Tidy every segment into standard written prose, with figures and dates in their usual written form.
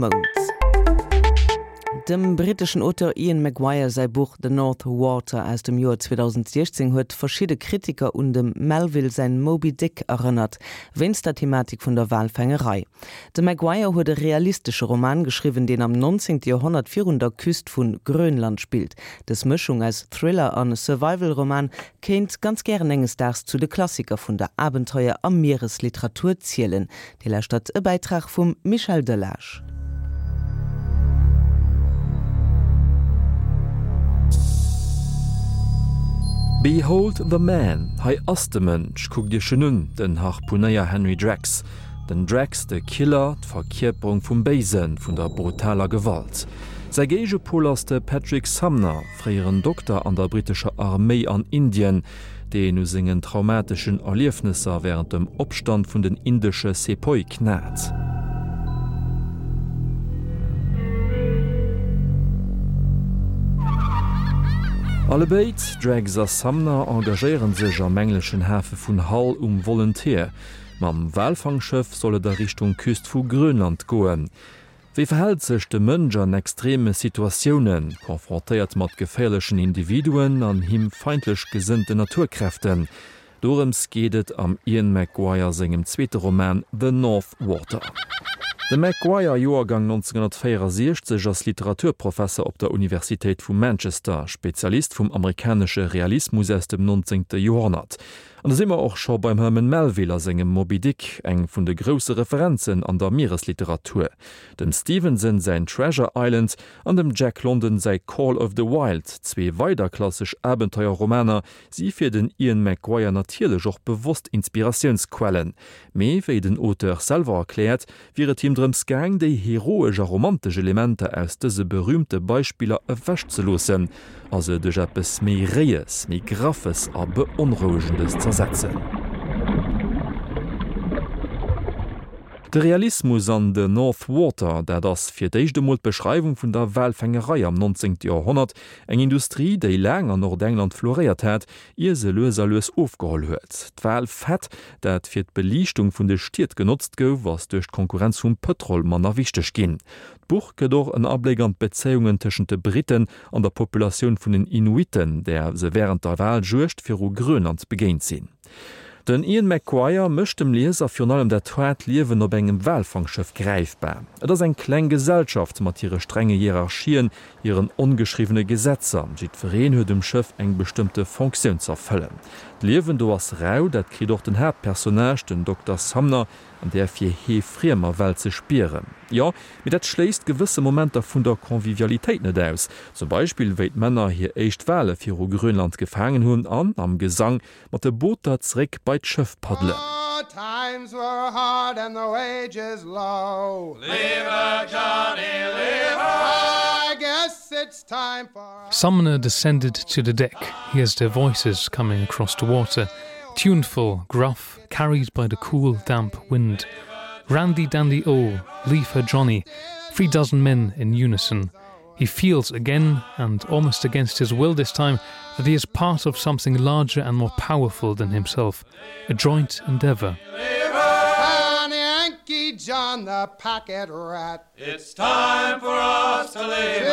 Mount. Dem britteschen Auteur Ian McGuire säi Buch The North Water aus dem Joer 2016 huet verschidde Kritiker un dem Melville säin Moby Dick erënnert, wéinst der Thematik vun der Walfängerei. De McGuire huet e realistesche Roman geschriwwen, deen am 19. Joerhonnert virun der Küst vu Grönland spillt. Dës Mëschung aus Thriller a Survival-Roman kéint ganz gären enges Daags zu de Klassiker vun der Abenteuer a Mieresliteratur zielen. Dir lauschtert e Bäitrag vum Michel Delage. Behold the Man, hei ass de Mënsch, kuckt iech en un, den Harpunéier Henry Drax. Den Drax, de Killer, d'Verkierperung vum Béisen, vun der brutaler Gewalt. Säi Géigepol ass de Patrick Sumner, fréieren Dokter an der brittescher Arméi an Indien, deen u sengen traumateschen Erliefnesser wärend dem Opstand vun den indesche Sepoy knat. Allebéid, Drax a Sumner, engagéiere sech am engleschen Hafe vun Hull um Volunteer. Mam Walfangschëff soll et a Richtung Küst vu Grönland goen. Wéi verhält sech de Mënsch an extreme Situatiounen, confrontéiert mat geféierlechen Individuen an him feindlech gesënnten Naturkräften? Dorëms geet et am Ian McGuire sengem zweete Roman The North Water. De McGuire, Joergang 1964, ass Literaturprofesser op der Universitéit vu Manchester, Spezialist vum amerikanesche Realismus aus dem 19. Joerhonnert. An da si mer och scho beim Herman Melville a sengem Moby Dick, eng vun de grousse Referenzen an der Mieresliteratur, dem Stevenson säin Treasure Island an dem Jack London säi Call of the Wild, zwee weider klassesch Abenteuerromaner, si fir den Ian McGuire natierlech och bewosst Inspiratiounsquellen. Mee wéi den Auteur selwer erkläert, wier et him drëms gaang, déi heroesch a romantesch Elementer aus dëse berüümte Beispiller ewechzeloossen a se duerch eppes méi Réies, méi Graffes a Beonrouegendes z'ersetzen. De Realismus an The North Water, dat ass fir d'éischt emol d'Beschreiwung vun der Walfängerei am 19. Joerhonnert, eng Industrie, déi laang an Nordengland floréiert hat, ier se lues a lues ofgeholl huet. D'Walfett, dat fir d'Beliichtung vun de Stied genotzt gouf, ass duerch d'Konkurrenz vum Pëtrol manner wichteg ginn. D'Buch gëtt och en Abléck an d'Bezéiungen tëschent de Britten an der Populatioun vun den Inuitten, där se wärend der Waljuegd viru Grönland begéint sinn. Den Ian McGuire mécht dem Lieser virun allem dat haart Liewen op engem Walfangschëff gräifbar. Et ass eng kleng Gesellschaft mat hire strenge Hierarchien, hiren ongeschriwwene Gesetzer. Jiddwereen huet um Schëff eng bestëmmte Fonctioun z'erfëllen. D'Liewen do ass rau, dat kritt och den Haaptpersonnage, den Dokter Sumner, an där fir hee friemer Welt ze spieren. Jo, mee dat schléisst gewësse Momenter vun der Convivialitéit net aus. Zum Beispill wéi d'Männer hir éischt Wale viru Grönland gefaangen hunn an am Gesang mat de Booter zeréck bei d'Schëff paddelen. Sumner descended to the deck, hears their voices coming across the water, tuneful, gruff, carried by the cool, damp wind. Randy Dandy O, leave her Johnny, three dozen men in unison. He feels again, and almost against his will this time, that he is part of something larger and more powerful than himself, a joint endeavor. Yankee John the packet rat. It's time for us to leave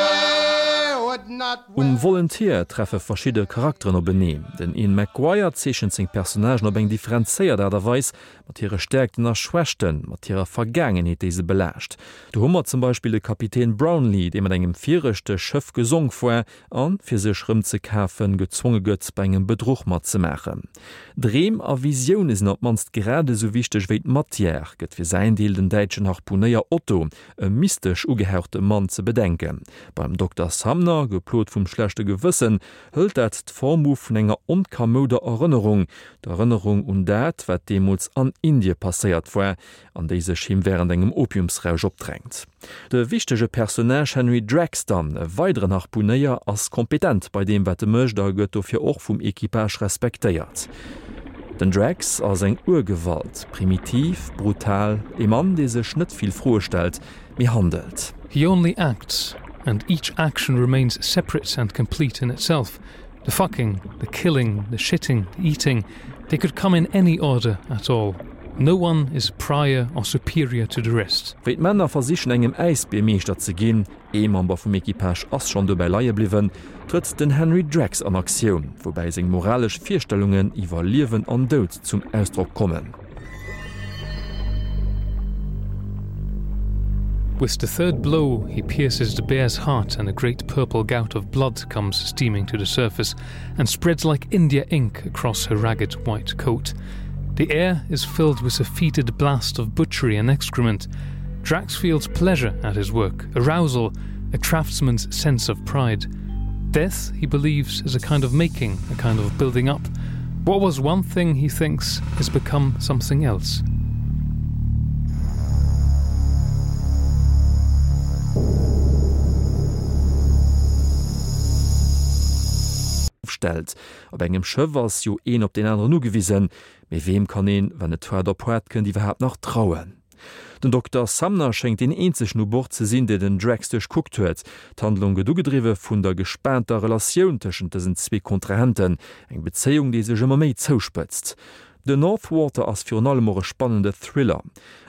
Um Volunteer treffe verschidde Charakteren openeen. Den Ian McGuire zeechent seng Personnagen op eng differenzéiert Aart a Weis, mat hire Stäerkten a Schwächten, mat hirer Vergaangenheet, déi se belaascht. Do hu mer zum Beispill de Kapitän Brownlee, dee mat engem viregte Schëff gesonk war an, fir sech rëmzekafen, gezwonge gëtt, bei engem Bedruch matzemaachen. Dreem a Visioune sinn op d'mannst grad esou wichteg wéi d'Matière, gëtt fir säin Deel den däitschen Harpunéier Otto, e mystesch ugehauchte Mann, ze bedenken. Beim Dokter Sumner, geplot vum schlechte Gewëssen, hëlt dat d'Form u vun enger onkamouder Erënnerung, d'Erënnerung un dat, wat deemools an Indie passéiert war, an déi sech him wärend engem Opiumsrausch opdrängt. De wichtege Personnage Henry Drax dann, e weideren Harpunéier, ass kompetent bei deem, wat e mécht a gëtt dofir och vum Equipage respektéiert. Den Drax ass eng Urgewalt, primitiv, brutal, e Mann, dee sech net vill Froe stellt, mee handelt. He only acts, and each action remains separate and complete in itself. The fucking, the killing, the shitting, the eating, they could come in any order at all. No one is prior or superior to the rest. Wéi d'Männer versichen engem Äisbier Meeschter ze ginn, ee Member vum Equipage ass schonn dobäi leie bliwwen, trëtt den Henry Drax an Aktioun, woubäi seng moralesch Virstellungen iwwer Liewen an Doud zum Ausdrock kommen. With the third blow he pierces the bear's heart and a great purple gout of blood comes steaming to the surface and spreads like India ink across her ragged white coat. The air is filled with a fetid blast of butchery and excrement. Drax feels pleasure at his work, arousal, a craftsman's sense of pride. Death, he believes, is a kind of making, a kind of building up. What was one thing he thinks has become something else. Stellt. Op engem Schëff ass jo een op deen aneren ugewisen, mee weem kann een, wann et haart op haart kënnt, iwwerhaapt nach trauen? Den Dokter Sumner schéngt deen eenzegen u Bord ze sinn, dee den Drax duerchkuckt huet. D'Handlung gëtt ugedriwwe vun der gespaanter Relatioun tëschent dësen zwee Kontrahenten, eng Bezéiung, déi sech ëmmer méi zouspëtzt. The North Water ass virun allem och e spannende Thriller.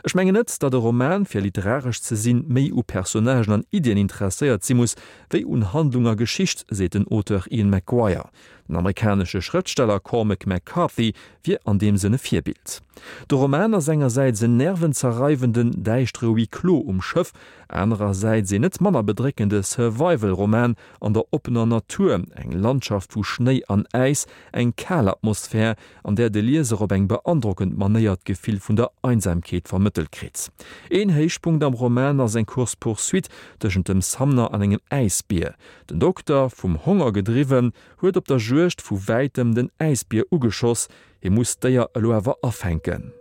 Ech mengen net, datt e Roman, fir literaresch ze sinn, méi u Personnagen an Iddien interesséiert si muss, wéi un Handlung a Geschicht, seet den Auteur Ian McGuire. Den amerikanesche Schrëftsteller Cormac McCarthy wier an deem Sënn e Virbild. De Roman ass engersäits en nervenzerreiwenden, däischtere Huis clos um Schëff, anerersäits een net manner bedréckende Survival-Roman an der oppener Natur, eng Landschaft vu Schnéi an Äis, eng kal Atmosphär, an där de Lieser op eng beandrockend Manéier d'Gefill vun der Einsamkeet vermëttelt kritt. Een Héichpunkt am Roman ass eng Course-poursuite tëschent dem Sumner an engem Äisbier. Den Dokter, vum Honger gedriwwen, huet op der Juegd vu wäitem den Äisbier ugeschoss. Hie muss d'Déier elo awer afänken.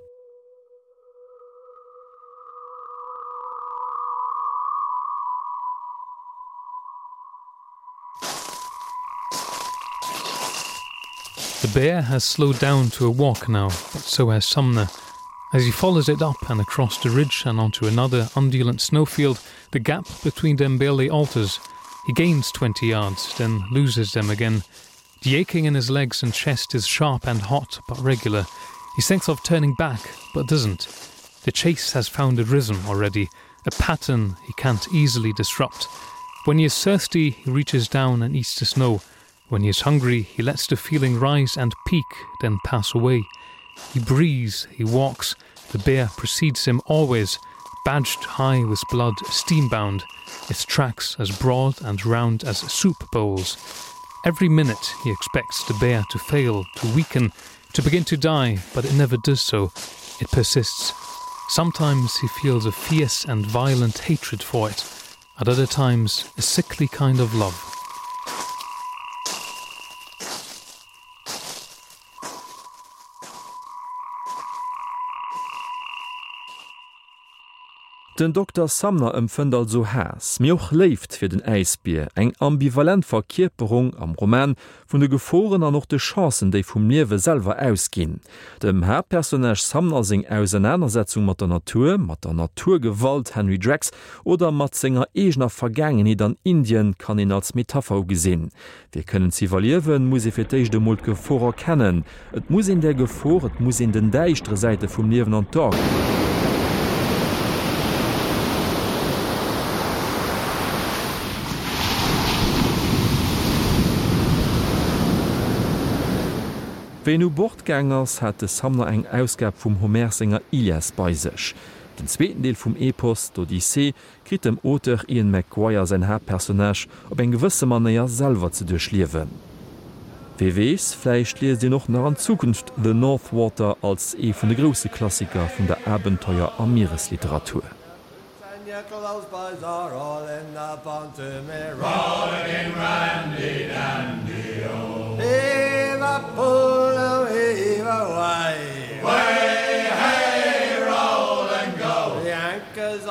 The bear has slowed down to a walk now, but so has Sumner. As he follows it up and across the ridge and onto another undulant snowfield, the gap between them barely alters. He gains 20 yards, then loses them again. The aching in his legs and chest is sharp and hot, but regular. He thinks of turning back, but doesn't. The chase has found a rhythm already, a pattern he can't easily disrupt. When he is thirsty, he reaches down and eats the snow. When he is hungry, he lets the feeling rise and peak, then pass away. He breathes, he walks, the bear precedes him always, badged high with blood, steambound, its tracks as broad and round as soup bowls. Every minute he expects the bear to fail, to weaken, to begin to die, but it never does so. It persists. Sometimes he feels a fierce and violent hatred for it, at other times a sickly kind of love. Den Dokter Sumner empfënnt also Haass, mee och Léift fir den Äisbier, eng ambivalent Verkierperung am Roman vun de Geforen an och de Chancen, déi vum Liewe selwer ausginn. Dem Haaptpersonnage Sumner seng Ausernanersetzung mat der Natur, mat der Naturgewalt, Henry Drax, oder mat senger eegener Vergaangenheet an Indien kann een als Metapher ugesinn. Fir kënnen ze iwwerliewen, muss ee fir d'éischt emol d'Gefor erkennen. Et muss een där Gefor, et muss een den däischtere Säite vum Liewen an d'A Wéi en u Bord gaang ass, hat de Sumner eng Ausgab vum Homer senger Ilias bei sech. Den zweeten Deel vum Epos, d'Odyssee, kritt dem Auteur Ian McGuire säin Haaptpersonnage op eng gewësse Manéier selwer ze duerchliewen. Wee weess, vläicht liest een och nach an Zukunft The North Water als ee vun de grousse Klassiker vun der Abenteuer a Mieresliteratur.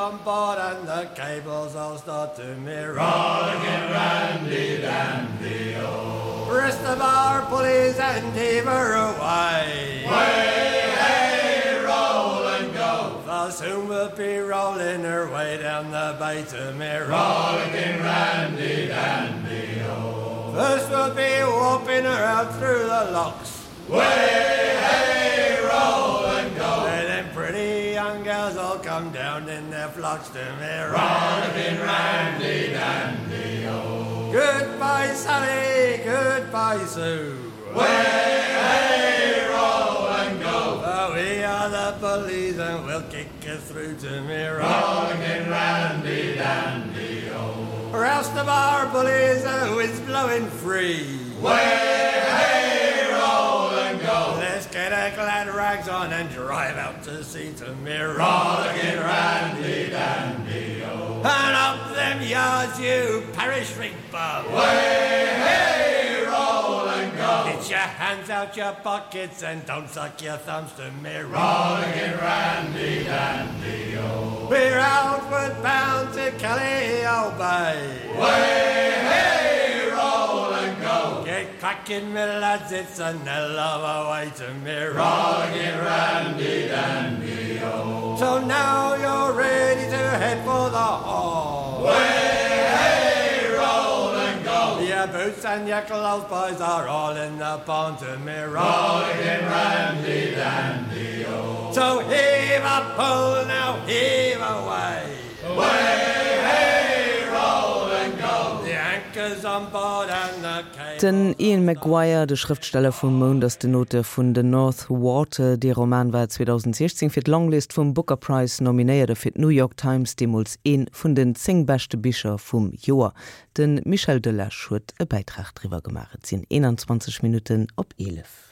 On board and the cables all start to me Rollicking Randy Dandy oh Rest of our pulleys and heaver away Way hey roll and go For soon we'll be rolling her way down the bay to me Rollicking Randy Dandy oh First we'll be whooping her out through the locks Way hey roll and go. come down in their flocks to me rollicking Randy Dandy oh. Goodbye Sally, goodbye Sue. Way hey roll and go. For we are the police and we'll kick you through to me rollicking Randy Dandy oh. Rouse the bar bullies and wind's blowing free. Way hey roll and go. Let's get our glad rags on and drive out to sea to me rollicking Randy Dandy oh. And up them yards you parish rig bum. Way hey roll and go. Get your hands out your pockets and don't suck your thumbs to me rollicking Randy Dandy oh. We're outward bound to Kelly old Bay. Way hey roll and go. Get cracking me lads, it's an hell of a way to me rollicking Randy Dandy oh. So now you're ready to head for the hall. Way hey roll and go. Your boots and your clothes boys are all in the pond to me rollicking Randy Dandy oh. So heave a pull now heave away. Way hey roll and go. The anchor's on board and the Den Ian McGuire, de Schrëftsteller vum Mount, ass den Auteur vun The North Water. Dee Roman war 2016 fir d'Longlist vum Booker Prize nominéiert a fir d'New York Times deemools ee vun den 10 beschte Bicher vum Joer. De Michel Delage huet e Bäitrag driwwer gemaach. Et sinn 21 Minutten op 11.